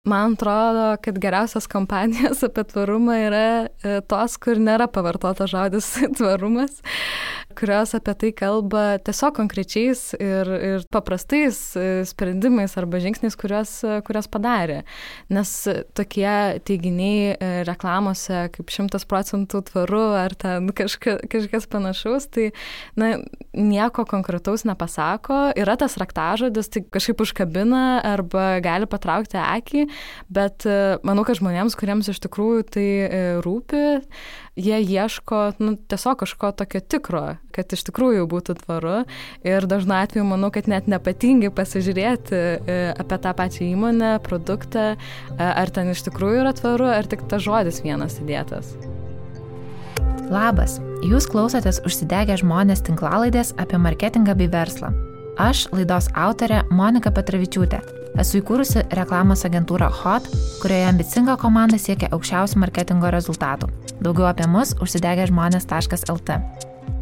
Man atrodo, kad geriausios kampanijos apie tvarumą yra tos, kur nėra pavartota žodis tvarumas, kurios apie tai kalba tiesiog konkrečiais ir paprastais sprendimais arba žingsniais, kurios padarė. Nes tokie teiginiai reklamose kaip 100% tvaru ar ten kažkas panašaus, tai nieko konkretaus nepasako. Yra tas raktažodis, tai kažkaip užkabina arba gali patraukti akį, bet manau, kad žmonėms, kuriems iš tikrųjų tai rūpi, jie ieško tiesiog kažko tokio tikro, kad iš tikrųjų būtų tvaru ir dažnu atveju manau, kad net nepatingi pasižiūrėti apie tą pačią įmonę, produktą, ar ten iš tikrųjų yra tvaru, ar tik tas žodis vienas įdėtas. Labas, jūs klausotės Užsidegę žmonės tinklalaidės apie marketingą bei verslą. Aš, laidos autorė Monika Petravičiūtė. Esu įkūrusi reklamos agentūrą Hot, kurioje ambicinga komanda siekia aukščiausių marketingo rezultatų. Daugiau apie mus užsidegežmonės.lt.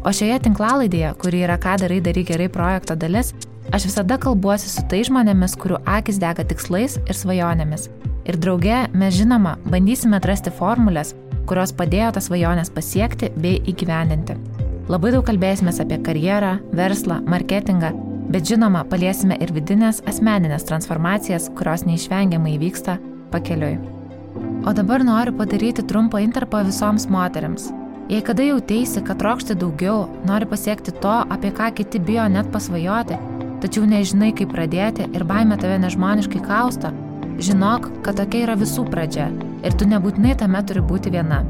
O šioje tinklalaidėje, kuri yra Ką darai gerai projekto dalis, aš visada kalbuosi su tai žmonėmis, kurių akis dega tikslais ir svajonėmis. Ir drauge mes žinoma bandysime atrasti formulės, kurios padėjo tas svajonės pasiekti bei įgyvendinti. Labai daug kalbėsimės apie karjerą, verslą, marketingą, bet žinoma, paliesime ir vidinės asmeninės transformacijas, kurios neišvengiamai įvyksta pakeliui. O dabar noriu padaryti trumpą intarpą visoms moteriams. Jei kada jauteisi, kad trokšti daugiau, nori pasiekti to, apie ką kiti bijo net pasvajoti, tačiau nežinai, kaip pradėti ir baimė tave nežmoniškai kausto, žinok, kad tokia yra visų pradžia ir tu nebūtinai tame turi būti viena.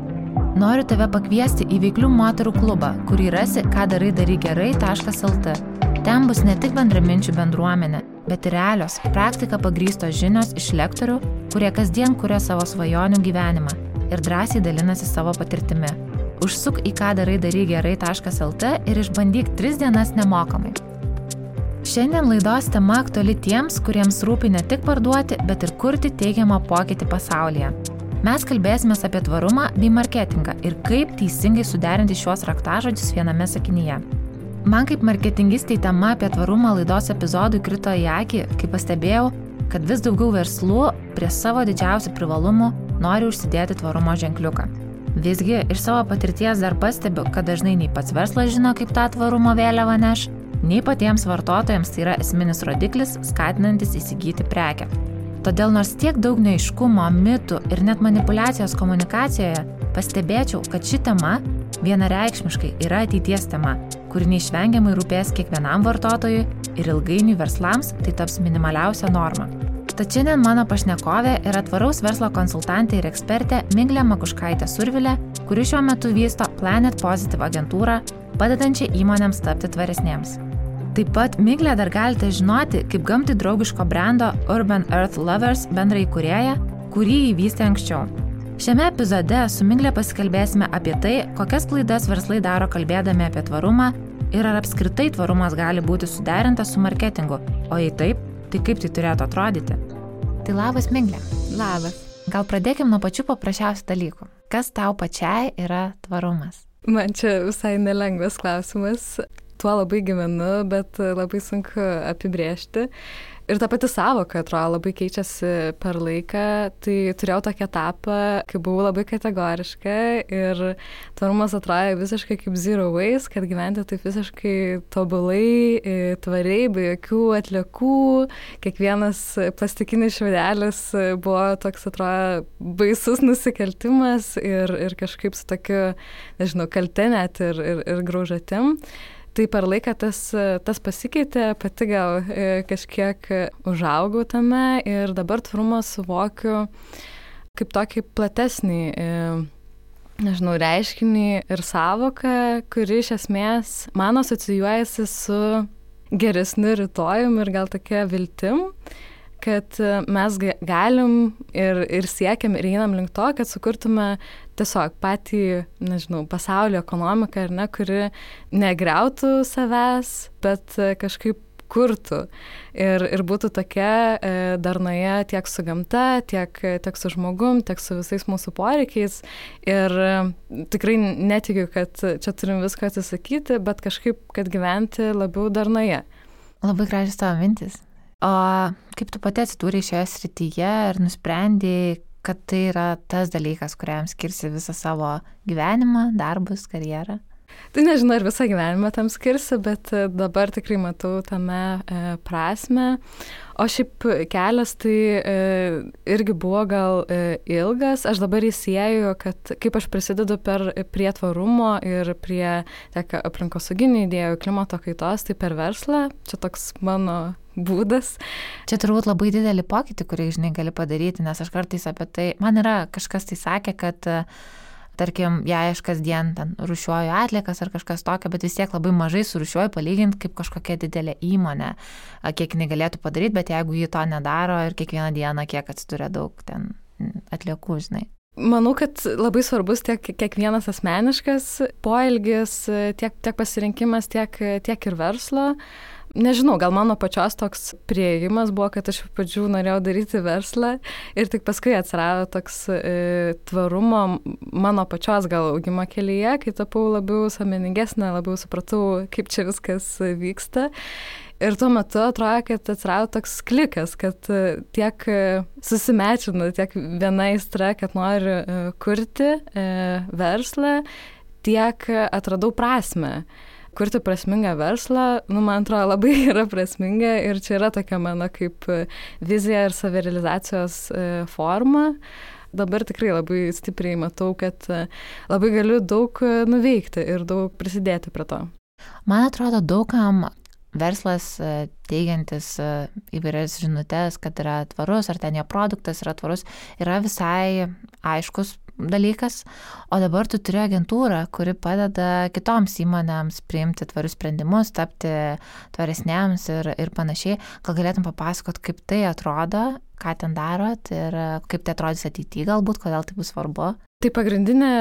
Noriu tave pakviesti į veiklių moterų klubą, kurį rasi kadarai-gerai.lt. Ten bus ne tik bendraminčių bendruomenė, bet ir realios, praktika pagrįstos žinios iš lektorių, kurie kasdien kuria savo svajonių gyvenimą ir drąsiai dalinasi savo patirtimi. Užsuk į kadarai-gerai.lt ir išbandyk 3 dienas nemokamai. Šiandien laidos tema aktuali tiems, kuriems rūpi ne tik parduoti, bet ir kurti teigiamą pokytį pasaulyje. Mes kalbėsime apie tvarumą bei marketingą ir kaip teisingai suderinti šiuos raktažodžius viename sakinyje. Man kaip marketingistei tema apie tvarumą laidos epizodų krito į akį, kai pastebėjau, kad vis daugiau verslų prie savo didžiausių privalumų nori užsidėti tvarumo ženkliuką. Visgi, iš savo patirties dar pastebiu, kad dažnai nei pats verslas žino, kaip tą tvarumo vėliavą neš, nei patiems vartotojams tai yra esminis rodiklis, skatinantis įsigyti prekę. Todėl nors tiek daug neaiškumo, mitų ir net manipulacijos komunikacijoje, pastebėčiau, kad ši tema vienareikšmiškai yra ateities tema, kuri neišvengiamai rūpės kiekvienam vartotojui ir ilgainiui verslams tai taps minimaliausia norma. Tad šiandien mano pašnekovė yra tvaraus verslo konsultantė ir ekspertė Miglė Makuškaitė-Survilė, kuri šiuo metu vysto Planet Positive agentūrą, padedančią įmonėms tapti tvaresnėms. Taip pat Miglę dar galite žinoti kaip gamtai draugiško brendo Urban Earth Lovers bendraįkūrėja, kurį įvystė anksčiau. Šiame epizode su Miglė pasikalbėsime apie tai, kokias klaidas verslai daro kalbėdami apie tvarumą ir ar apskritai tvarumas gali būti suderintas su marketingu, o jei taip, tai kaip tai turėtų atrodyti. Tai labas, Miglė. Labas. Gal pradėkim nuo pačių paprasčiausių dalykų. Kas tau pačiai yra tvarumas? Man čia visai nelengvas klausimas. Tuo labai gyvenu, bet labai sunku apibrėžti. Ir ta pati sąvoka, atrodo, labai keičiasi per laiką. Tai turėjau tokį etapą, kai buvau labai kategoriška ir tvarumas atrodė visiškai kaip zero waste, kad gyventi taip visiškai tobulai, tvariai, be jokių atliekų. Kiekvienas plastikinis šiaudelis buvo toks, atrodo, baisus nusikaltimas ir kažkaip su tokiu, nežinau, kalte net ir graužatim. Tai per laiką tas pasikeitė, pati gal kažkiek užaugau tame ir dabar tvarumą suvokiu kaip tokį platesnį, nežinau, reiškinį ir sąvoką, kuri iš esmės man asocijuojasi su geresniu rytojum ir gal tokia viltim, kad mes galim ir siekiam ir einam link to, kad sukurtume tiesiog patį, nežinau, pasaulio ekonomiką, ar ne, kuri negriautų savęs, bet kažkaip kurtų ir būtų tokia darnoje tiek su gamta, tiek su žmogum, tiek su visais mūsų poreikiais. Ir tikrai netikiu, kad čia turim viską atsisakyti, bet kažkaip, kad gyventi labiau darnoje. Labai gražios tavo mintis. O kaip tu pati atsidūrei šioje srityje ir nusprendėjai, kad tai yra tas dalykas, kuriam skirsi visą savo gyvenimą, darbus, karjerą? Tai nežinau, ar visą gyvenimą tam skirsiu, bet dabar tikrai matau tame prasme. O šiaip kelias tai irgi buvo gal ilgas. Aš dabar įsieju, kad kaip aš prisidedu prie tvarumo ir prie tiek aplinkosauginių idėjų, klimato kaitos, tai per verslą. Čia toks mano būdas. Čia turbūt labai didelį pokytį, kurį, žinai, gali padaryti, nes aš kartais apie tai, man yra kažkas tai sakė, kad tarkim, jei aš kasdien ten rūšiuoju atliekas ar kažkas tokio, bet vis tiek labai mažai surūšiuoju palyginti kaip kažkokia didelė įmonė, kiek jinai galėtų padaryti, bet jeigu ji to nedaro ir kiekvieną dieną kiek atsiduria daug ten atliekų, žinai. Manau, kad labai svarbus tiek kiekvienas asmeniškas poelgis, tiek pasirinkimas, tiek ir verslo. Nežinau, gal mano pačios toks priėjimas buvo, kad aš pradžių norėjau daryti verslą ir tik paskui atsirado toks tvarumo mano pačios gal augimo kelyje, kai tapau labiau sąmoningesnė, labiau supratau, kaip čia viskas vyksta. Ir tuo metu atrodo, kad atsirado toks klikas, kad tiek susimečinu, tiek viena aistra, kad noriu kurti verslą, tiek atradau prasmę. Kurti prasmingą verslą, man atrodo, labai yra prasminga ir čia yra tokia mano kaip vizija ir savirealizacijos forma. Dabar tikrai labai stipriai matau, kad labai galiu daug nuveikti ir daug prisidėti prie to. Man atrodo, daugam verslas teigiantis įvairias žinutes, kad yra tvarus, ar ten jo produktas yra tvarus, yra visai aiškus dalykas, o dabar tu turi agentūrą, kuri padeda kitoms įmonėms priimti tvarius sprendimus, tapti tvaresnėms ir panašiai. Gal galėtum papasakot, kaip tai atrodo, ką ten darot ir kaip tai atrodys ateityje galbūt, kodėl tai bus svarbu? Tai pagrindinė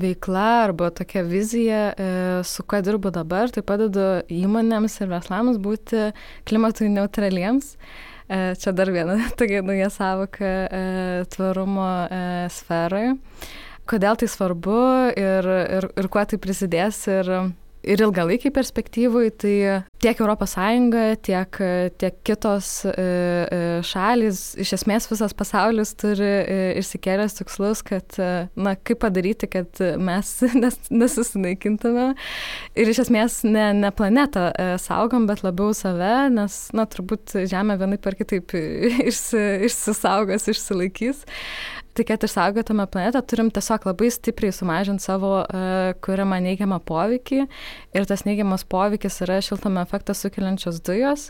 veikla arba tokia vizija, su kuo dirbu dabar, tai padedu įmonėms ir verslams būti klimatui neutraliems. Čia dar viena tokia nauja sąvoka tvarumo sferoje. Kodėl tai svarbu ir kuo tai prisidės ir ilgalaikiai perspektyvai, tai tiek ES, tiek kitos šalys, iš esmės visas pasaulis turi išsikėlęs tikslus, kad, kaip padaryti, kad mes nesusinaikintume. Ir iš esmės ne planetą saugom, bet labiau save, nes, turbūt Žemė vienaip ar kitaip išsisaugos, išsilaikys. Tai kad išsaugotume planetą, turim tiesiog labai stipriai sumažinti savo kuriamą neigiamą poveikį. Ir tas neigiamas poveikis yra šiltnamio efektą sukeliančios dujos.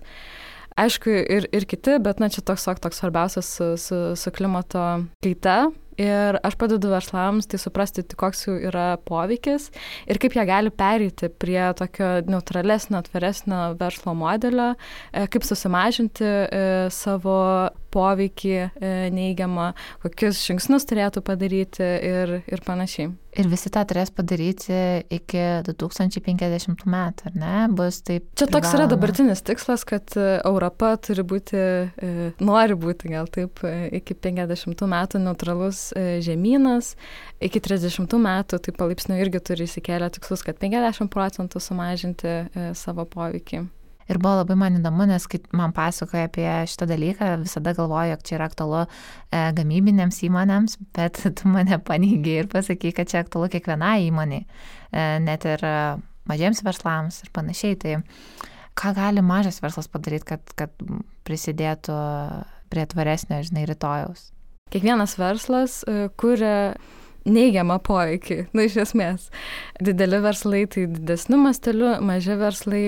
Aišku, ir kiti, bet čia toks svarbiausias su klimato kaita. Ir aš padedu verslams tai suprasti, koks jų yra poveikis ir kaip jie gali pereiti prie tokio neutralesnio, tvaresnio verslo modelio, kaip susimažinti savo poveikį neigiamą, kokius žingsnius turėtų padaryti ir panašiai. Ir visi tą turės padaryti iki 2050 metų, ar ne? Bus taip čia toks privaloma. Yra dabartinis tikslas, kad Europa nori būti gal taip iki 50 metų neutralus žemynas, iki 30 metų tai palaipsniui irgi turi įsikėlę tikslus, kad 50% sumažinti savo poveikį. Ir buvo labai man įdomu, nes kai man pasakoja apie šitą dalyką, visada galvoju, jog čia yra aktualu gamybinėms įmonėms, bet tu mane paneigei ir pasakai, kad čia aktualu kiekvienai įmoniai, net ir mažiems verslams ir panašiai. Tai ką gali mažas verslas padaryti, kad prisidėtų prie tvaresnio, rytojaus? Kiekvienas verslas kuria neigiamą poveikį, iš esmės. Dideli verslai tai didesniu masteliu, maži verslai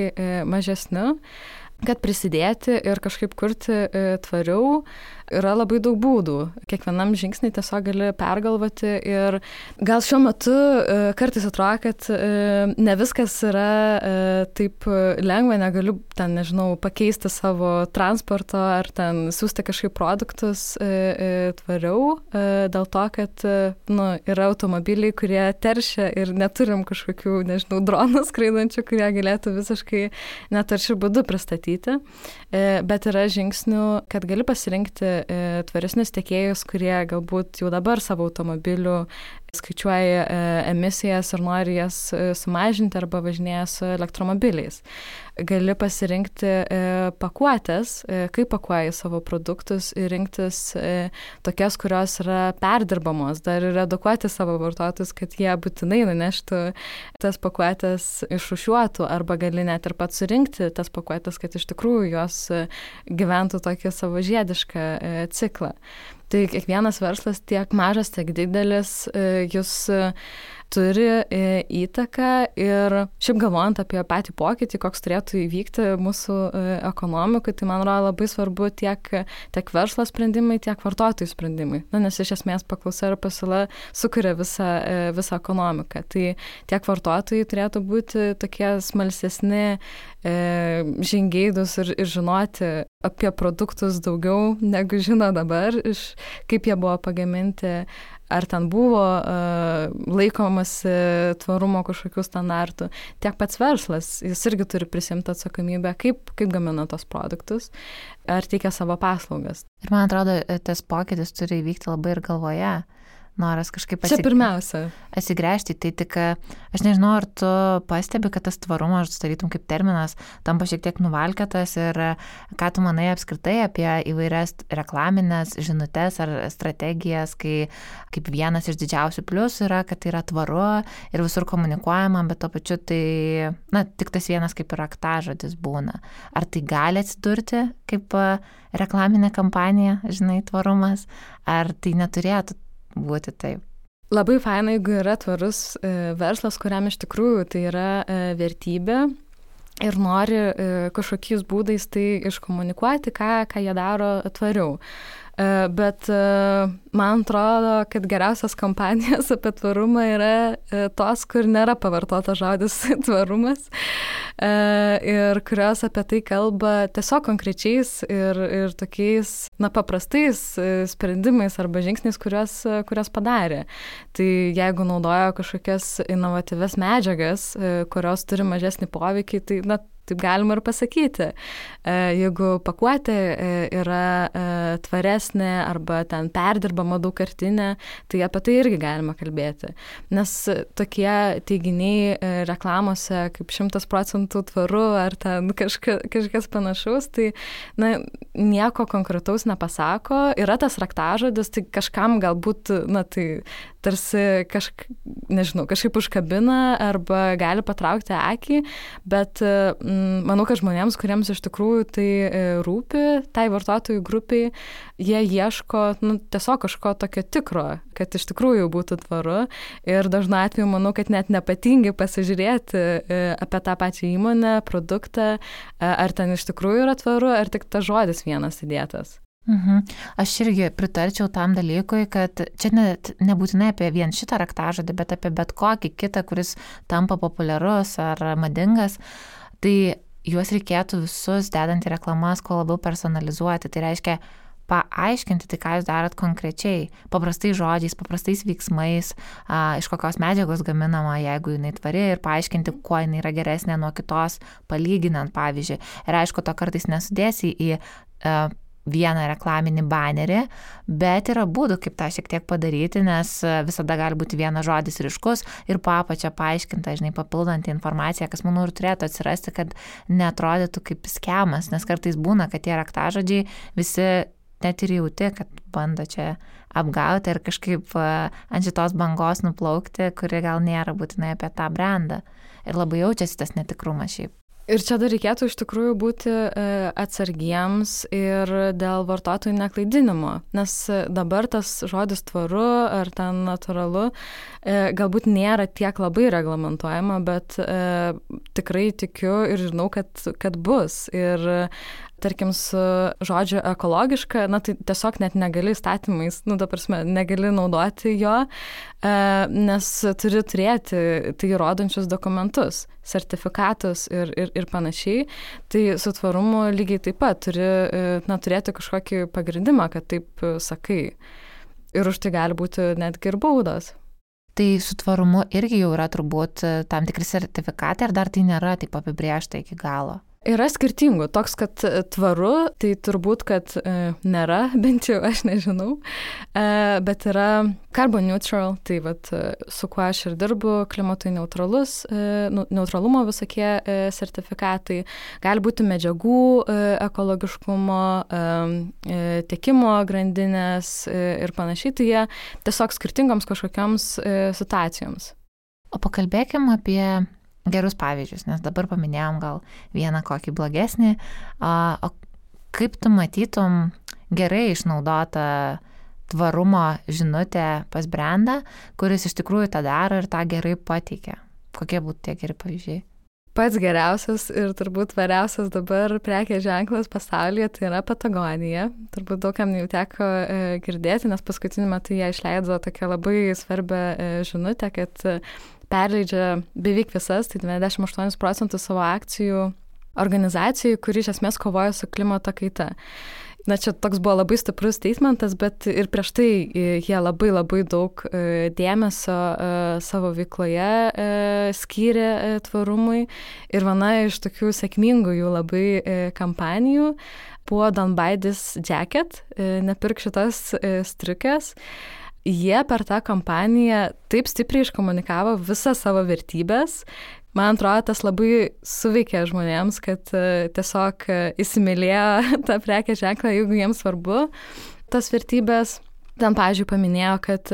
mažesniu. Kad prisidėti ir kažkaip kurti tvariau, yra labai daug būdų. Kiekvienam žingsnį tiesiog gali pergalvoti ir gal šiuo metu kartais atrodo, kad ne viskas yra taip lengva, negaliu ten, pakeisti savo transporto ar ten siūsti kažkaip produktus tvariau, dėl to, kad yra automobiliai, kurie teršia ir neturim kažkokių, dronų skraidančių, kurie galėtų visiškai netaršių būdų pristatyti. Bet yra žingsnių, kad gali pasirinkti tvaresnius tiekėjus, kurie galbūt jau dabar savo automobilių skaičiuoji emisijas ir nori jas sumažinti arba važinėja su elektromobiliais. Gali pasirinkti pakuotės, kaip pakuoji savo produktus ir rinktis tokias, kurios yra perdirbamos, dar ir edukuoti savo vartotojus, kad jie būtinai nuneštų tas pakuotės išrūšiuotų arba gali net ir pats surinkti tas pakuotės, kad iš tikrųjų jos gyventų tokį savo žiedišką ciklą. Tai kiekvienas verslas, tiek mažas, tiek didelis, jūs turi įtaką ir šiaip galvojant apie patį pokytį, koks turėtų įvykti mūsų ekonomikui, tai man atrodo labai svarbu tiek verslo sprendimai, tiek vartotojų sprendimai. Nes iš esmės paklausa ir pasiūla sukuria visą ekonomiką. Tai tiek vartotojai turėtų būti tokie smalsesni, žingeidūs ir žinoti apie produktus daugiau, negu žino dabar, kaip jie buvo pagaminti, ar ten buvo laikomasi tvarumo kažkokių standartų. Tiek pats verslas, jis irgi turi prisimti atsakomybę, kaip gamina tos produktus, ar teikia savo paslaugas. Ir man atrodo, tas pokytis turi įvykti labai ir galvoje. Noras kažkaip atsigręžti. Tai tik, aš nežinau, ar tu pastebi, kad tas tvarumas, tarytum kaip terminas, tampa šiek tiek nuvalkėtas ir ką tu manai apskritai apie įvairias reklaminės žinutes ar strategijas, kai kaip vienas iš didžiausių pliusų yra, kad tai yra tvaru ir visur komunikuojama, bet to pačiu tai, tik tas vienas kaip ir raktažodis būna. Ar tai gali atsidurti kaip reklaminė kampanija, tvarumas, ar tai neturėtų būti taip? Labai faina, jeigu yra tvarus verslas, kuriam iš tikrųjų tai yra vertybė ir nori kažkokiais būdais tai iškomunikuoti, ką jie daro tvariau. Bet man atrodo, kad geriausias kampanijos apie tvarumą yra tos, kur nėra pavartotas žodis tvarumas ir kurios apie tai kalba tiesiog konkrečiais ir tokiais paprastais sprendimais arba žingsniais, kurios padarė. Tai jeigu naudoja kažkokias inovatyvias medžiagas, kurios turi mažesnį poveikį, tai taip galima ir pasakyti. Jeigu pakuotė yra tvaresnė arba ten perdirbama daugkartinė, tai apie tai irgi galima kalbėti. Nes tokie teiginiai reklamose kaip 100% tvaru ar ten kažkas panašaus, tai nieko konkretaus nepasako. Yra tas raktažodis, tai kažkam galbūt, tai tarsi kažkaip užkabina arba gali patraukti akį, bet manau, kad žmonėms, kuriems iš tikrųjų tai rūpi, tai vartotojų grupiai, jie ieško tiesiog kažko tokio tikro, kad iš tikrųjų būtų tvaru ir dažnu atveju manau, kad net nepatingi pasižiūrėti apie tą pačią įmonę, produktą, ar ten iš tikrųjų yra tvaru, ar tik tas žodis vienas įdėtas. Aš irgi pritarčiau tam dalykui, kad čia net nebūtinai apie vien šitą raktažodį, bet apie bet kokį kitą, kuris tampa populiarus ar madingas, tai juos reikėtų visus dedant į reklamas kuo labiau personalizuoti. Tai reiškia paaiškinti tai, ką jūs darot konkrečiai, paprastais žodžiais, paprastais veiksmais, iš kokios medžiagos gaminama, jeigu jinai tvari, ir paaiškinti, kuo jinai yra geresnė nuo kitos, palyginant, pavyzdžiui. Ir aišku, to kartais nesudėsi į vieną reklaminį banerį, bet yra būdų, kaip tą šiek tiek padaryti, nes visada gali būti vienas žodis ryškus ir po apačia paaiškinta, papildanti informacija, kas, manau, ir turėtų atsirasti, kad neatrodytų kaip skemas, nes kartais būna, kad tie raktažodžiai visi net ir jauti, kad bando čia apgauti ir kažkaip ant šitos bangos nuplaukti, kuri gal nėra būtinai apie tą brandą. Ir labai jaučiasi tas netikrumas šiaip. Ir čia dar reikėtų iš tikrųjų būti atsargiems ir dėl vartotojų neklaidinimo, nes dabar tas žodis tvaru ar ten natūralu galbūt nėra tiek labai reglamentuojama, bet tikrai tikiu ir žinau, kad bus. Ir tarkim, su žodžiu ekologiška, tai tiesiog net negali įstatymais, negali naudoti jo, nes turi turėti tai įrodančius dokumentus, sertifikatus ir panašiai. Tai su tvarumu lygiai taip pat turi turėti kažkokį pagrindimą, kad taip sakai. Ir už tai gali būti netgi ir baudos. Tai su tvarumu irgi jau yra turbūt tam tikri sertifikatai, ar dar tai nėra taip apibrėžta iki galo? Yra skirtingų. Toks, kad tvaru, tai turbūt, kad nėra, bent jau aš nežinau, bet yra carbon neutral, tai vat, su kuo aš ir dirbu, klimatui neutralumo visokie sertifikatai, gali būti medžiagų ekologiškumo, tiekimo grandinės ir panašiai, tai jie tiesiog skirtingoms kažkokiams situacijoms. O pakalbėkim apie gerus pavyzdžius, nes dabar paminėjom gal vieną kokį blogesnį. O kaip tu matytum gerai išnaudotą tvarumo žinutę pas brandą, kuris iš tikrųjų tą daro ir tą gerai pateikia? Kokie būtų tie geri pavyzdžiai? Pats geriausias ir turbūt tvariausias dabar prekės ženklas pasaulyje tai yra Patagonija. Turbūt daugam jau teko girdėti, nes paskutiniu metu jie išleido tokią labai svarbią žinutę, kad perleidžia beveik visas, tai 98% savo akcijų organizacijai, kuri iš esmės kovoja su klimato kaita. Na, čia toks buvo labai stiprus statementas, bet ir prieš tai jie labai daug dėmesio savo veikloje skyrė tvarumui. Ir viena iš tokių sėkmingų jų labai kampanijų buvo Don't Buy This Jacket, nepirk šitas striukės. Jie per tą kampaniją taip stipriai iškomunikavo visas savo vertybės. Man atrodo, tas labai suveikė žmonėms, kad tiesiog įsimylėjo tą prekės ženklą, jeigu jiems svarbu tas vertybės. Ten, pavyzdžiui, paminėjo, kad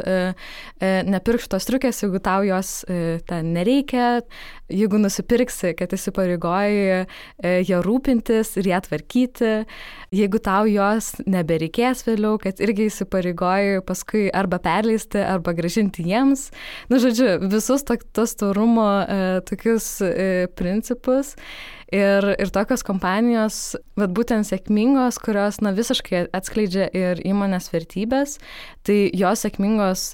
nepirk šitos striukės, jeigu tau jos ten nereikia, jeigu nusipirksi, kad įsipareigoji ją rūpintis ir ją tvarkyti, jeigu tau jos nebereikės vėliau, kad irgi įsipareigoji paskui arba perleisti, arba grąžinti jiems. Nu, žodžiu, visus tos tvarumo tokius principus. Ir tokios kompanijos, vat būtent sėkmingos, kurios visiškai atskleidžia ir įmonės vertybės, tai jos sėkmingos,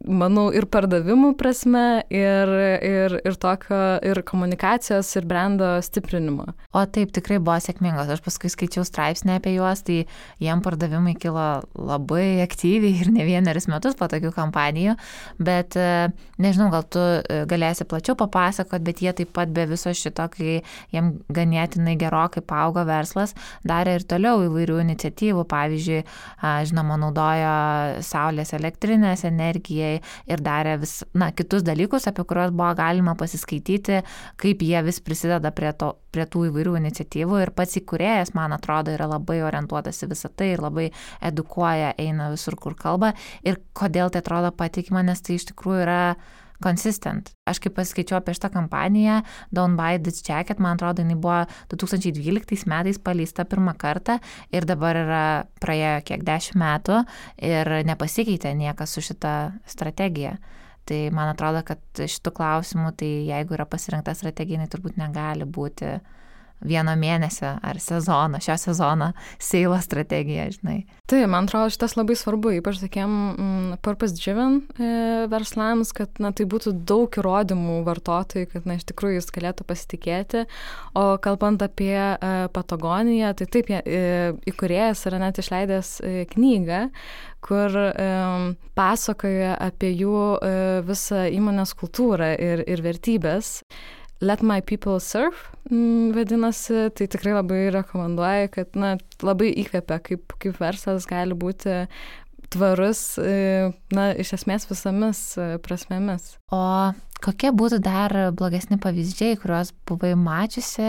manau, ir pardavimų prasme, ir tokio, ir komunikacijos, ir brando stiprinimo. O taip, tikrai buvo sėkmingos. Aš paskui skaičiau straipsnį apie juos, tai jiem pardavimai kilo labai aktyviai ir ne vienerius metus po tokių kampanijų, bet nežinau, gal tu galėsi plačiau papasakot, bet jie taip pat be viso šito, kai jiem ganėtinai gerokai paaugo verslas, darė ir toliau įvairių iniciatyvų, pavyzdžiui, žinoma, naudojo saulės elektrinės energijai ir darė kitus dalykus, apie kuriuos buvo galima pasiskaityti, kaip jie vis prisideda prie tų įvairių iniciatyvų ir pats įkūrėjas, man atrodo, yra labai orientuotas į visą tai ir labai edukuoja, eina visur, kur kalba ir kodėl tai atrodo patikima, nes tai iš tikrųjų yra consistent. Aš kaip paskaičiau apie šitą kampaniją Don't Buy This Jacket, man atrodo, jinai buvo 2012 metais paleista pirmą kartą ir dabar yra praėjo kiek 10 metų ir nepasikeitė niekas su šita strategija. Tai man atrodo, kad šitų klausimų, tai jeigu yra pasirinkta strategija, jinai turbūt negali būti vieno mėnesio ar sezono, šio sezono seilo strategija, žinai. Tai, man atrodo, šitas labai svarbu, ypač tokiem purpose-driven verslams, kad tai būtų daug įrodymų vartotojai, kad iš tikrųjų jis galėtų pasitikėti. O kalbant apie Patagoniją, tai taip, įkūrėjas yra net išleidęs knygą, kur pasakoja apie jų visą įmonės kultūrą ir vertybės. Let My People Surf vadinasi, tai tikrai labai rekomenduoju, kad labai įkvepia, kaip verslas gali būti tvarus, iš esmės visomis prasmėmis. O kokie būtų dar blogesni pavyzdžiai, kuriuos buvai mačiusi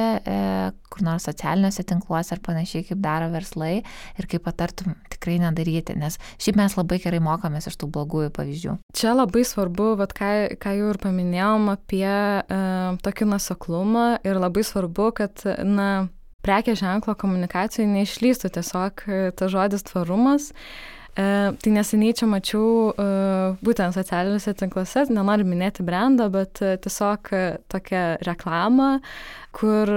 kur nors socialiniuose tinkluose ar panašiai, kaip daro verslai ir kaip patartum tikrai nedaryti, nes šiaip mes labai gerai mokomės iš tų blogųjų pavyzdžių. Čia labai svarbu, ką jau ir paminėjom apie tokį nuoseklumą ir labai svarbu, kad prekės ženklo komunikacijai neišlystų tiesiog tas žodis tvarumas. Tai neseniai čia mačiau būtent socialiniuose tinkluose, nenoriu minėti brandą, bet tiesiog tokią reklamą, kur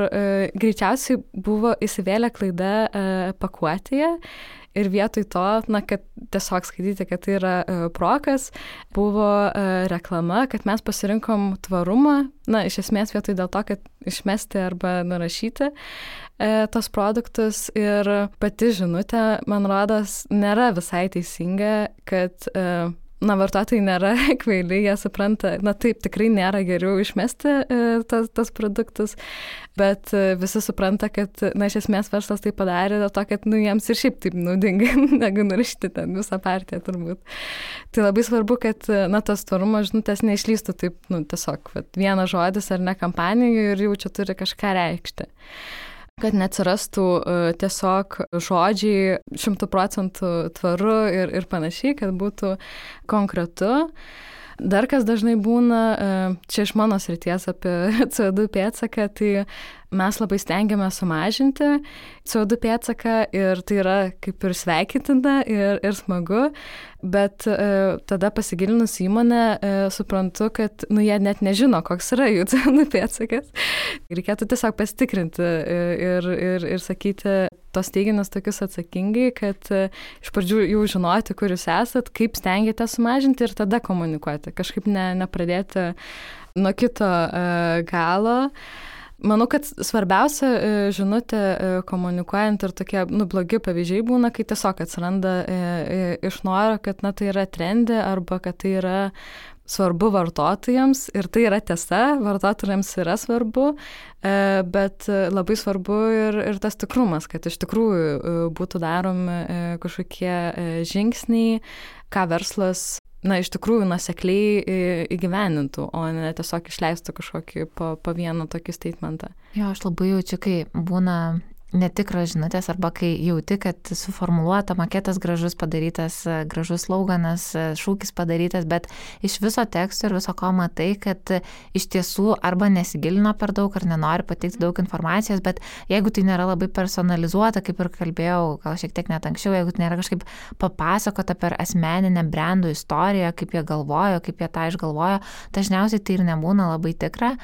greičiausiai buvo įsivėlę klaida pakuotėje ir vietoj to, kad tiesiog skaityti, kad tai yra prokas, buvo reklama, kad mes pasirinkom tvarumą, iš esmės vietoj dėl to, kad išmesti arba nurašyti tos produktus ir pati žinutė, man rodos, nėra visai teisinga, kad vartotojai nėra kvaili, jie supranta, taip, tikrai nėra geriau išmesti tas produktus, bet visi supranta, kad, iš esmės verslas tai padarė dėl to, kad, jiems ir šiaip taip naudinga, negu nurašyti ten visą partiją turbūt. Tai labai svarbu, kad, tas tvarumo žinutės neišlystų taip, tiesiog, vienas žodis ar ne kampanijų ir jau čia turi kažką reikšti. Kad neatsirastų tiesiog žodžiai 100% tvaru ir panašiai, kad būtų konkretu. Dar kas dažnai būna, čia iš mano srities apie CO2 pėdsaką, tai mes labai stengiamės sumažinti CO2 pėdsaką ir tai yra kaip ir sveikintina ir smagu, bet tada pasigilinus įmonę suprantu, kad jie net nežino, koks yra jų CO2 pėdsakas. Reikėtų tiesiog pasitikrinti ir sakyti tos teiginius tokius atsakingai, kad iš pradžių jau žinoti, kur jūs esat, kaip stengiate sumažinti ir tada komunikuoti. Kažkaip nepradėti nuo kito galo. Manau, kad svarbiausia žinutė komunikuojant ir tokie blogi pavyzdžiai būna, kai tiesiog atsiranda iš noro, kad tai yra trendi arba kad tai yra svarbu vartotojams ir tai yra tiesa, vartotojams yra svarbu, bet labai svarbu ir tas tikrumas, kad iš tikrųjų būtų daromi kažkokie žingsniai, ką verslas iš tikrųjų nuosekliai įgyvenintų, o ne tiesiog išleistų kažkokį po vieną tokį statementą. Jo, aš labai jaučiu, kai būna netikros žinutės arba kai jauti, kad suformuluota maketas gražus padarytas, gražus sloganas, šūkis padarytas, bet iš viso teksto ir viso ko matai, kad iš tiesų arba nesigilino per daug ar nenori pateikti daug informacijos, bet jeigu tai nėra labai personalizuota, kaip ir kalbėjau, gal šiek tiek net anksčiau, jeigu tai nėra kažkaip papasakota per asmeninę brandų istoriją, kaip jie galvojo, kaip jie tą išgalvojo, dažniausiai tai ir nebūna labai tikra.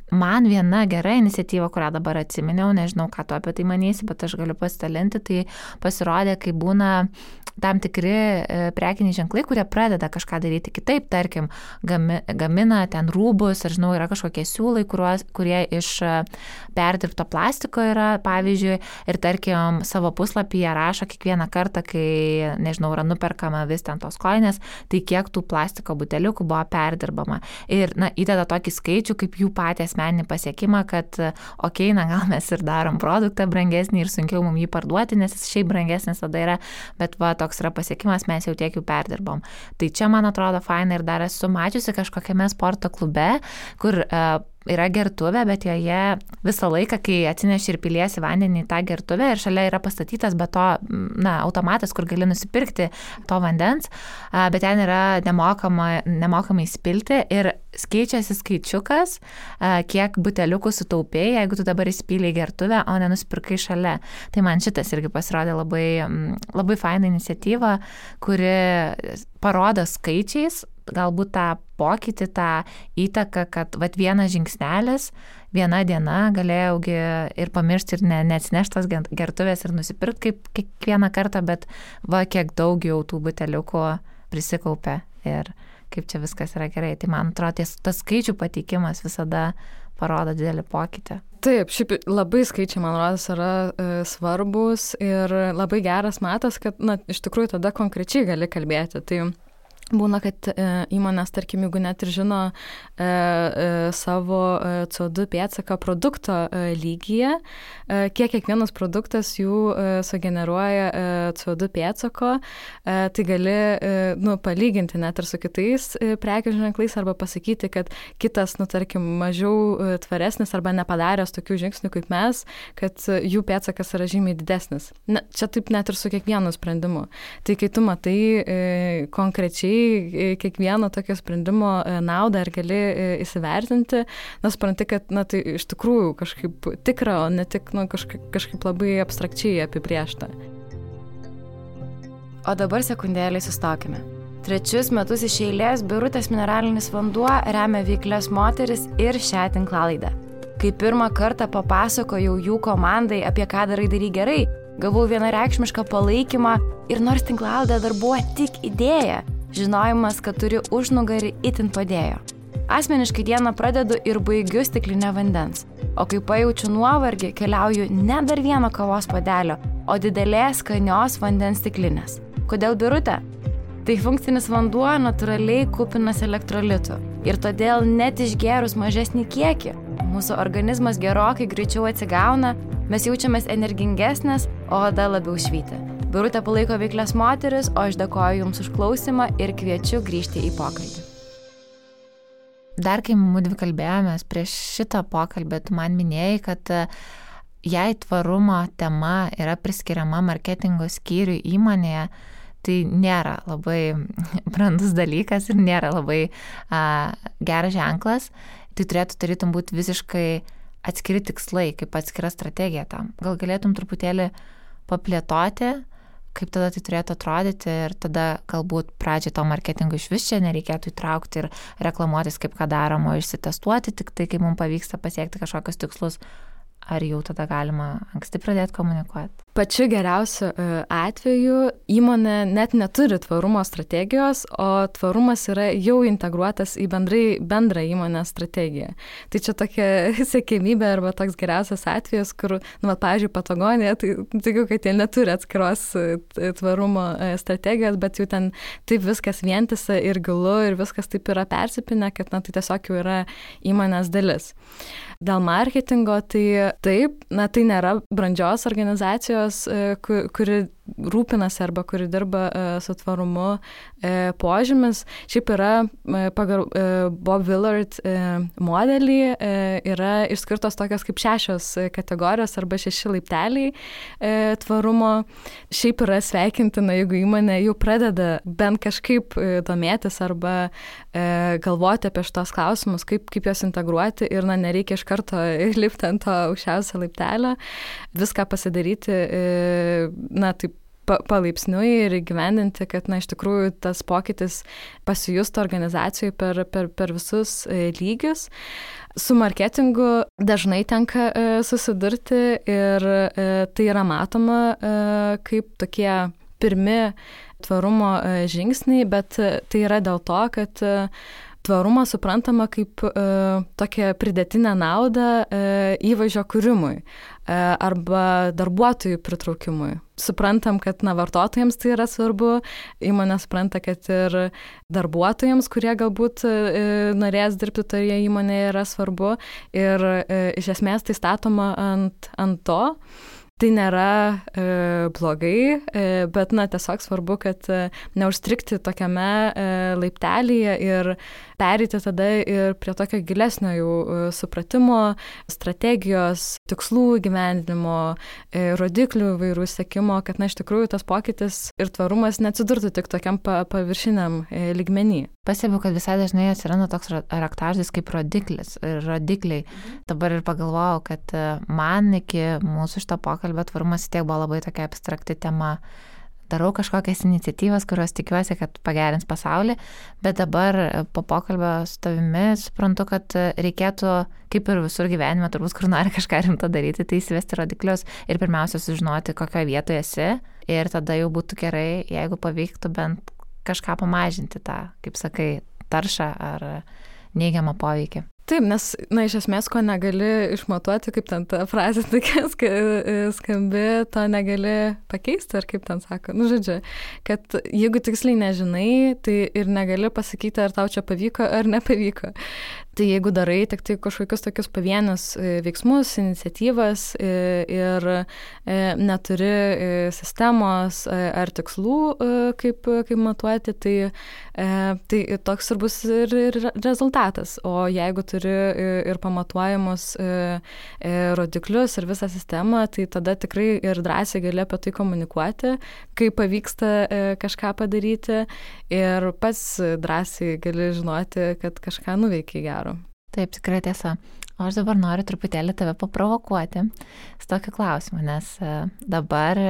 Man viena gera iniciatyva, kurią dabar atsiminiau, nežinau, ką tu apie tai manysi, bet aš galiu pasidalinti, tai pasirodė, kai būna tam tikri prekiniai ženklai, kurie pradeda kažką daryti kitaip, tarkim, gamina ten rūbus, ar žinau, yra kažkokie siūlai, kurie iš perdirbto plastiko yra, pavyzdžiui, ir tarkim, savo puslapyje rašo kiekvieną kartą, kai, nežinau, yra nuperkama vis ten tos kojinės, tai kiek tų plastiko buteliukų buvo perdirbama. Ir, įdeda tokį skaičių, kaip jų patį asmeninį pasiekimą, kad, gal mes ir darom produktą brangesnį ir sunkiau mums jį parduoti, nes jis šiaip brangesnis tada yra, bet toks yra pasiekimas, mes jau tiek jų perdirbom. Tai čia, man atrodo, faina ir dar esu mačiusi kažkokiame sporto klube, kur yra gertuvė, bet joje visą laiką, kai atsineši ir piliesi vandenį į tą gertuvę ir šalia yra pastatytas be to, automatas, kur gali nusipirkti to vandens, bet ten yra nemokamai spilti ir keičiasi skaičiukas, kiek buteliukų sutaupėjai, jeigu tu dabar įspylei gertuvę, o nenusipirkai šalia. Tai man šitas irgi pasirodė labai, labai faina iniciatyva, kuri parodo skaičiais, galbūt tą pokytį, tą įtaką, kad vienas žingsnelis, viena diena galėjaugi ir pamiršti ir neatsinešti tos gertuvės ir nusipirkti kaip kiekvieną kartą, bet kiek daug jau tų buteliukų prisikaupė ir kaip čia viskas yra gerai. Tai man atrodo, tas skaičių pateikimas visada parodo didelį pokytį. Taip, šiaip labai skaičiai, man rodos, yra svarbus ir labai geras matas, kad iš tikrųjų tada konkrečiai gali kalbėti. Tai būna, kad įmonės, tarkim, jeigu net ir žino savo CO2 pėdsaką produkto lygyje, kiek kiekvienas produktas jų sugeneruoja CO2 pėdsako, tai gali palyginti net ir su kitais prekių ženklais arba pasakyti, kad kitas, tarkim, mažiau tvaresnis arba nepadaręs tokių žingsnių kaip mes, kad jų pėdsakas yra žymiai didesnis. Čia taip net ir su kiekvienu sprendimu. Tai kai tu matai konkrečiai kiekvieno tokio sprendimo naudą ir gali įsivertinti, supranti, kad tai iš tikrųjų kažkaip tikra, o ne tik kažkaip labai abstrakčiai apibrėžta. O dabar sekundėlį sustokime. 3 metus iš eilės Birutės mineralinis vanduo remia veiklias moteris ir šią tinklalaidę. Kai pirmą kartą papasakojau jų komandai, apie ką darai gerai, gavau vienareikšmišką palaikymą ir nors tinklalaidė dar buvo tik idėja, žinojimas, kad turi užnugarį itin padėjo. Asmeniškai dieną pradedu ir baigiu stiklinę vandens, o kai pajaučiu nuovargį, keliauju ne dar vieno kavos puodelio, o didelės skanios vandens stiklinės. Kodėl Birutė? Tai funkcinis vanduo natūraliai kupinas elektrolitų. Ir todėl net išgėrus mažesnį kiekį, mūsų organizmas gerokai greičiau atsigauna, mes jaučiamės energingesnės, o oda labiau švyti. Birutė palaiko veiklias moteris, o aš dėkoju Jums už klausimą ir kviečiu grįžti į pokalbį. Dar kai mudvi kalbėjomės prieš šitą pokalbį, tu man minėjai, kad jei tvarumo tema yra priskiriama marketingo skyriui įmonėje, tai nėra labai brandus dalykas ir nėra labai geras ženklas. Tai turėtų tarytum būti visiškai atskiri tikslai, kaip atskira strategija tam. Gal galėtum truputėlį paplėtoti, kaip tada tai turėtų atrodyti ir tada galbūt pradžiai to marketingo iš vis čia nereikėtų įtraukti ir reklamuotis kaip ką daroma, išsitestuoti tik tai, kai mums pavyksta pasiekti kažkokius tikslus. Ar jau tada galima anksti pradėti komunikuoti? Pačiu geriausiu atveju įmonė net neturi tvarumo strategijos, o tvarumas yra jau integruotas į bendrą įmonės strategiją. Tai čia tokia siekiamybė arba toks geriausias atvejas, kur, pavyzdžiui, Patagonija, tai tikiu, kad jie neturi atskiros tvarumo strategijos, bet jau ten taip viskas vientisa ir gilu ir viskas taip yra persipinę, kad tai tiesiog jau yra įmonės dalis. Dėl marketingo, tai taip, tai nėra brandžios organizacijos, kuri rūpinasi arba kuri dirba su tvarumu požymis. Šiaip yra pagal Bob Willard modelį yra išskirtos tokios kaip 6 kategorijos arba 6 laipteliai tvarumo. Šiaip yra sveikintina, jeigu įmonė jau pradeda bent kažkaip domėtis arba galvoti apie šitos klausimus, kaip juos integruoti ir nereikia iš karto lipti ant to aukščiausio laiptelio, viską pasidaryti, taip palaipsniui ir įgyvendinti, kad iš tikrųjų tas pokytis pasijustų organizacijai per visus lygius. Su marketingu dažnai tenka susidurti ir tai yra matoma kaip tokie pirmi tvarumo žingsniai, bet tai yra dėl to, kad tvarumą suprantama kaip tokią pridėtinę naudą įvaizdžio kūrimui arba darbuotojų pritraukimui. Suprantam, kad vartotojams tai yra svarbu, įmonė supranta, kad ir darbuotojams, kurie galbūt norės dirbti toje įmonėje, yra svarbu ir iš esmės tai statoma ant to. Tai nėra blogai, bet tiesiog svarbu, kad neužstrikti tokiame laiptelyje ir pereiti tada ir prie tokio gilesnio jau supratimo, strategijos, tikslų įgyvendinimo, rodiklių įvairių sekimo, kad iš tikrųjų tas pokytis ir tvarumas neatsidurtų tik tokiam paviršiniam lygmenį. Pastebiu, kad visai dažnai atsiranda toks raktažodis kaip rodikliai. Dabar ir pagalvojau, kad man iki mūsų šito pokalbio tvarumas tiek buvo labai tokia abstrakti tema. Darau kažkokias iniciatyvas, kurios tikiuosi, kad pagerins pasaulį, bet dabar po pokalbio su tavimi suprantu, kad reikėtų, kaip ir visur gyvenime, turbūt, kur nori kažką rimto daryti, tai įsivesti rodiklius ir pirmiausia sužinoti, kokioje vietoje esi ir tada jau būtų gerai, jeigu pavyktų bent kažką pamažinti tą, kaip sakai, taršą ar neigiamą poveikį. Taip, nes, iš esmės, ko negali išmatuoti, kaip ten ta frazė tokia skambi, to negali pakeisti, ar kaip ten sako. Žodžiu, kad jeigu tiksliai nežinai, tai ir negali pasakyti, ar tau čia pavyko, ar nepavyko. Tai jeigu darai tik tai kažkokius tokius pavienius veiksmus, iniciatyvas ir neturi sistemos ar tikslų, kaip matuoti, tai toks ir bus ir rezultatas. O jeigu turi ir pamatuojamus rodiklius ir visą sistemą, tai tada tikrai ir drąsiai gali apie tai komunikuoti, kai pavyksta kažką padaryti ir pats drąsiai gali žinoti, kad kažką nuveikia gero. Taip, tikrai tiesa. O aš dabar noriu truputėlį tave paprovokuoti su tokiu klausimu, nes dabar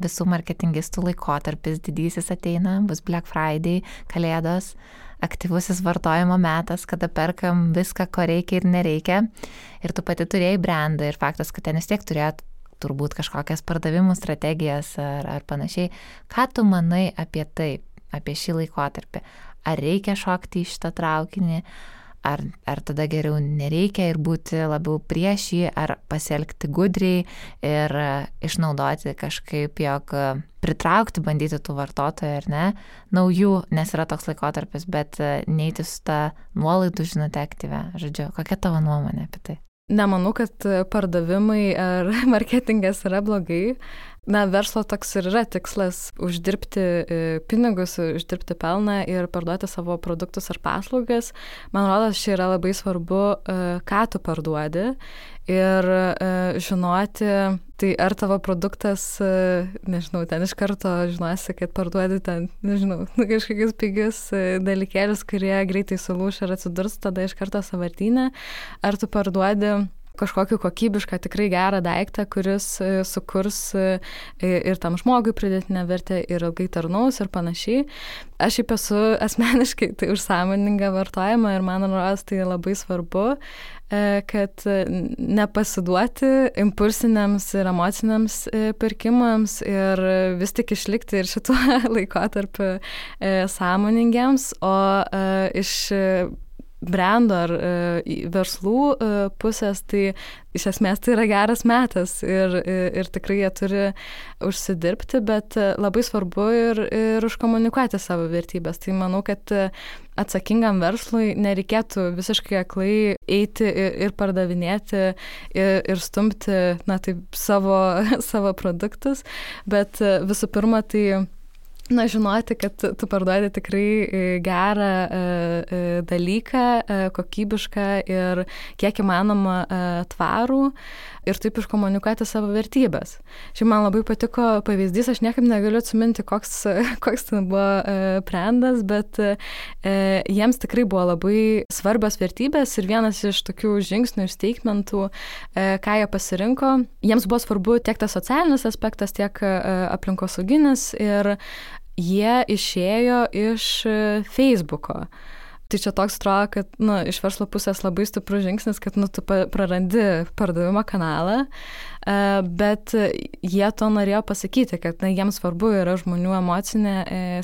visų marketingistų laikotarpis didysis ateina, bus Black Friday, Kalėdos, aktyvusis vartojimo metas, kada perkam viską, ko reikia ir nereikia. Ir tu pati turėjai brandą ir faktas, kad ten vis tiek turėt turbūt kažkokias pardavimų strategijas ar panašiai. Ką tu manai apie tai, apie šį laikotarpį? Ar reikia šokti į šitą traukinį? ar tada geriau nereikia ir būti labiau prieš jį, ar pasielgti gudriai ir išnaudoti kažkaip, jog pritraukti, bandyti tų vartotojų ar ne, naujų, nes yra toks laikotarpis, bet neiti su ta nuolaidų žinute aktyvia. Žodžiu, kokia tavo nuomonė apie tai? Nemanau, kad pardavimai ar marketingas yra blogai. Na, verslo toks ir yra tikslas uždirbti pinigus, uždirbti pelną ir parduoti savo produktus ar paslaugas. Man rodos, čia yra labai svarbu, ką tu parduodi ir žinoti, tai ar tavo produktas, nežinau, ten iš karto žinosi, kad parduodi ten, nežinau, kažkokius pigius dalykėlius, kurie greitai sulūš ir atsidurs tada iš karto sąvartyne, ar tu parduodi kažkokį kokybišką, tikrai gerą daiktą, kuris sukurs ir tam žmogui pridėtinę vertę ir ilgai tarnaus ir panašiai. Aš šiaip esu asmeniškai tai už sąmoningą vartojimą ir man rodos tai labai svarbu, kad nepasiduoti impulsiniams ir emociniams pirkimams ir vis tik išlikti ir šituo laikotarpiu sąmoningiams, o iš brendo ar verslų pusės, tai iš esmės tai yra geras metas ir tikrai jie turi užsidirbti, bet labai svarbu ir užkomunikuoti savo vertybės. Tai manau, kad atsakingam verslui nereikėtų visiškai aklai eiti ir pardavinėti ir stumti, na, taip, savo produktus, bet visų pirma, tai žinoti, kad tu parduodi tikrai gerą dalyką, kokybišką ir kiek įmanoma tvarų ir taip iškomunikuoti savo vertybės. Šiaip man labai patiko pavyzdys, aš niekaip negaliu atsiminti, koks ten buvo brandas, bet jiems tikrai buvo labai svarbios vertybės ir vienas iš tokių žingsnių ir statementų, ką jie pasirinko, jiems buvo svarbu tiek tas socialinis aspektas, tiek aplinkosauginis ir jie išėjo iš Facebooko. Tai čia toks atrodo, kad iš verslo pusės labai stiprus žingsnis, kad tu prarandi pardavimo kanalą, bet jie to norėjo pasakyti, kad jiems svarbu yra žmonių emocinė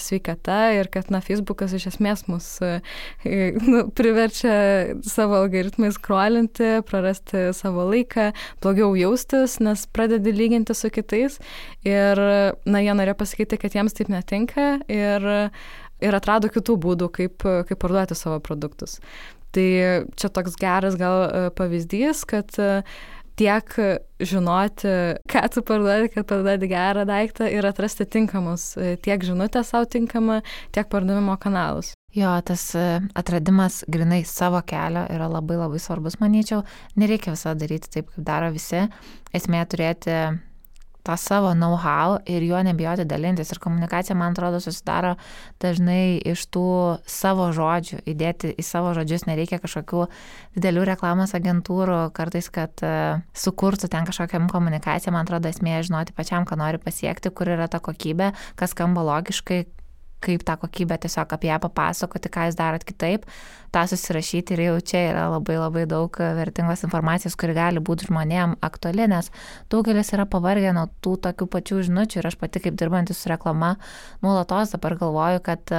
sveikata ir kad Facebookas iš esmės mus priverčia savo algoritmais scrollinti, prarasti savo laiką, blogiau jaustis, nes pradedi lyginti su kitais ir jie norėjo pasakyti, kad jiems taip netinka ir atrado kitų būdų, kaip parduoti savo produktus. Tai čia toks geras gal pavyzdys, kad tiek žinoti, ką tu parduodi, kad parduodi gerą daiktą ir atrasti tinkamus, tiek žinutę savo tinkamą, tiek pardavimo kanalus. Jo, tas atradimas grinai savo kelio yra labai labai svarbus, manyčiau. Nereikia visą daryti taip, kaip daro visi. Esmė turėti tą savo know-how ir juo nebijoti dalintis. Ir komunikacija, man atrodo, susidaro dažnai iš tų savo žodžių. Įdėti į savo žodžius nereikia kažkokių didelių reklamos agentūrų, kartais, kad sukurtų ten kažkokią komunikaciją. Man atrodo, esmė žinoti pačiam, ką nori pasiekti, kur yra ta kokybė, kas skamba logiškai, kaip tą kokybę tiesiog apie ją papasakoti, ką jūs darot kitaip, tą susirašyti ir jau čia yra labai labai daug vertingos informacijos, kuri gali būti žmonėm aktuali, nes daugelis yra pavargę nuo tų tokių pačių žinučių ir aš pati kaip dirbantis su reklama nuolatos dabar galvoju, kad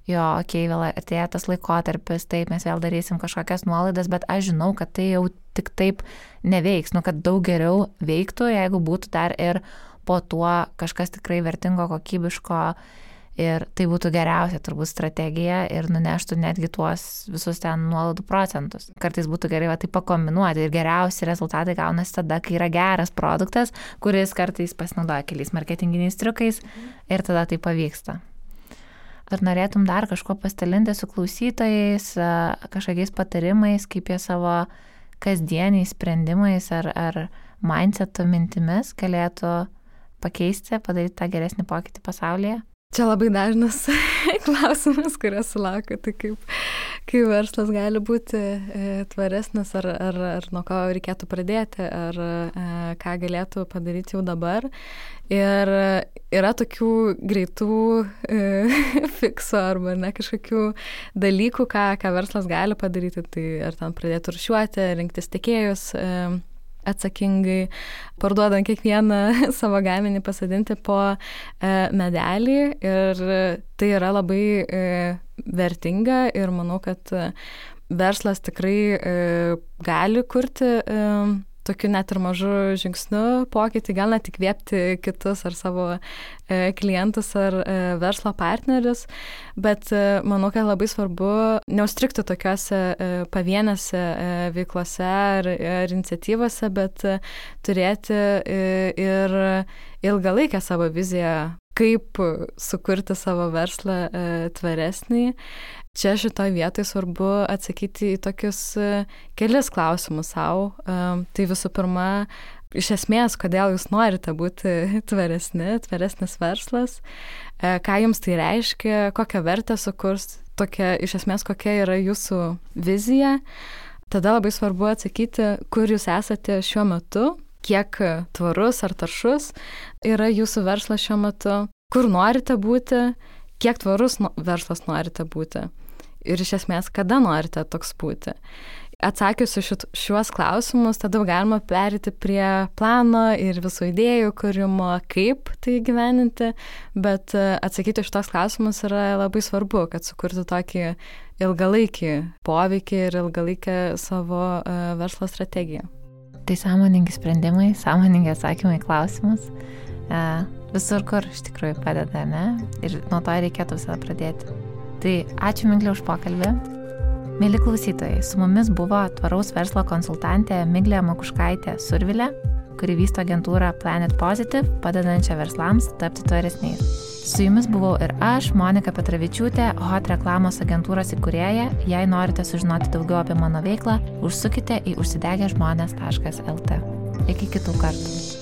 vėl atėjo tas laikotarpis, taip, mes vėl darysim kažkokias nuolaidas, bet aš žinau, kad tai jau tik taip neveiks, kad daug geriau veiktų, jeigu būtų dar ir po tuo kažkas tikrai vertingo, kokybiško. Ir tai būtų geriausia turbūt strategija ir nuneštų netgi tuos visus ten nuolaidų procentus. Kartais būtų gerai tai pakombinuoti ir geriausi rezultatai gaunasi tada, kai yra geras produktas, kuris kartais pasinaudoja keliais marketinginiais triukais ir tada tai pavyksta. Ar norėtum dar kažko pasidalinti su klausytojais, kažkokiais patarimais, kaip jie savo kasdieniais sprendimais ar mindseto mintimis galėtų pakeisti, padaryti tą geresnį pokytį pasaulyje? Čia labai dažnas klausimas, kurio sulaukiu, tai kaip verslas gali būti tvaresnis, ar nuo ko reikėtų pradėti, ar ką galėtų padaryti jau dabar. Ir yra tokių greitų fiksų arba kažkokių dalykų, ką verslas gali padaryti, tai ar ten pradėti rūšiuoti, rinktis tiekėjus, atsakingai, parduodant kiekvieną savo gaminį, pasodinti po medelį ir tai yra labai vertinga ir manau, kad verslas tikrai gali kurti tokiu net ir mažu žingsniu pokytį, gal net įkvėpti kitus ar savo klientus ar verslo partnerius, bet manau, kad labai svarbu neužstrigti tokiuose pavienėse veiklose ar iniciatyvose, bet turėti ir ilgalaikę savo viziją, kaip sukurti savo verslą tvaresnį. Čia šitoje vietoje svarbu atsakyti į tokius kelis klausimus savo. Tai visų pirma, iš esmės, kodėl jūs norite būti tvaresnis verslas, ką jums tai reiškia, kokią vertę sukurs, iš esmės, kokia yra jūsų vizija. Tada labai svarbu atsakyti, kur jūs esate šiuo metu, kiek tvarus ar taršus yra jūsų verslas šiuo metu, kur norite būti, kiek tvarus verslas norite būti. Ir iš esmės, kada norite toks būti. Atsakius šiuos klausimus, tada galima perėti prie plano ir visų idėjų kūrimo, kaip tai gyveninti, bet atsakyti šitos klausimus yra labai svarbu, kad sukurti tokį ilgalaikį poveikį ir ilgalaikę savo verslo strategiją. Tai sąmoningi sprendimai, sąmoningi atsakymai klausimus. Visur, kur iš tikrųjų padeda, ne? Ir nuo to reikėtų visada pradėti. Tai ačiū Miglė už pokalbį. Mėly klausytojai, su mumis buvo tvaraus verslo konsultantė Miglė Makuškaitė Survilė, kuri vysto agentūrą Planet Positive, padedančią verslams tapti tvaresniais. Su jumis buvau ir aš, Monika Petravičiūtė, Hot reklamos agentūros įkūrėja. Jei norite sužinoti daugiau apie mano veiklą, užsukite į užsidegežmonės.lt. Iki kitų kartų.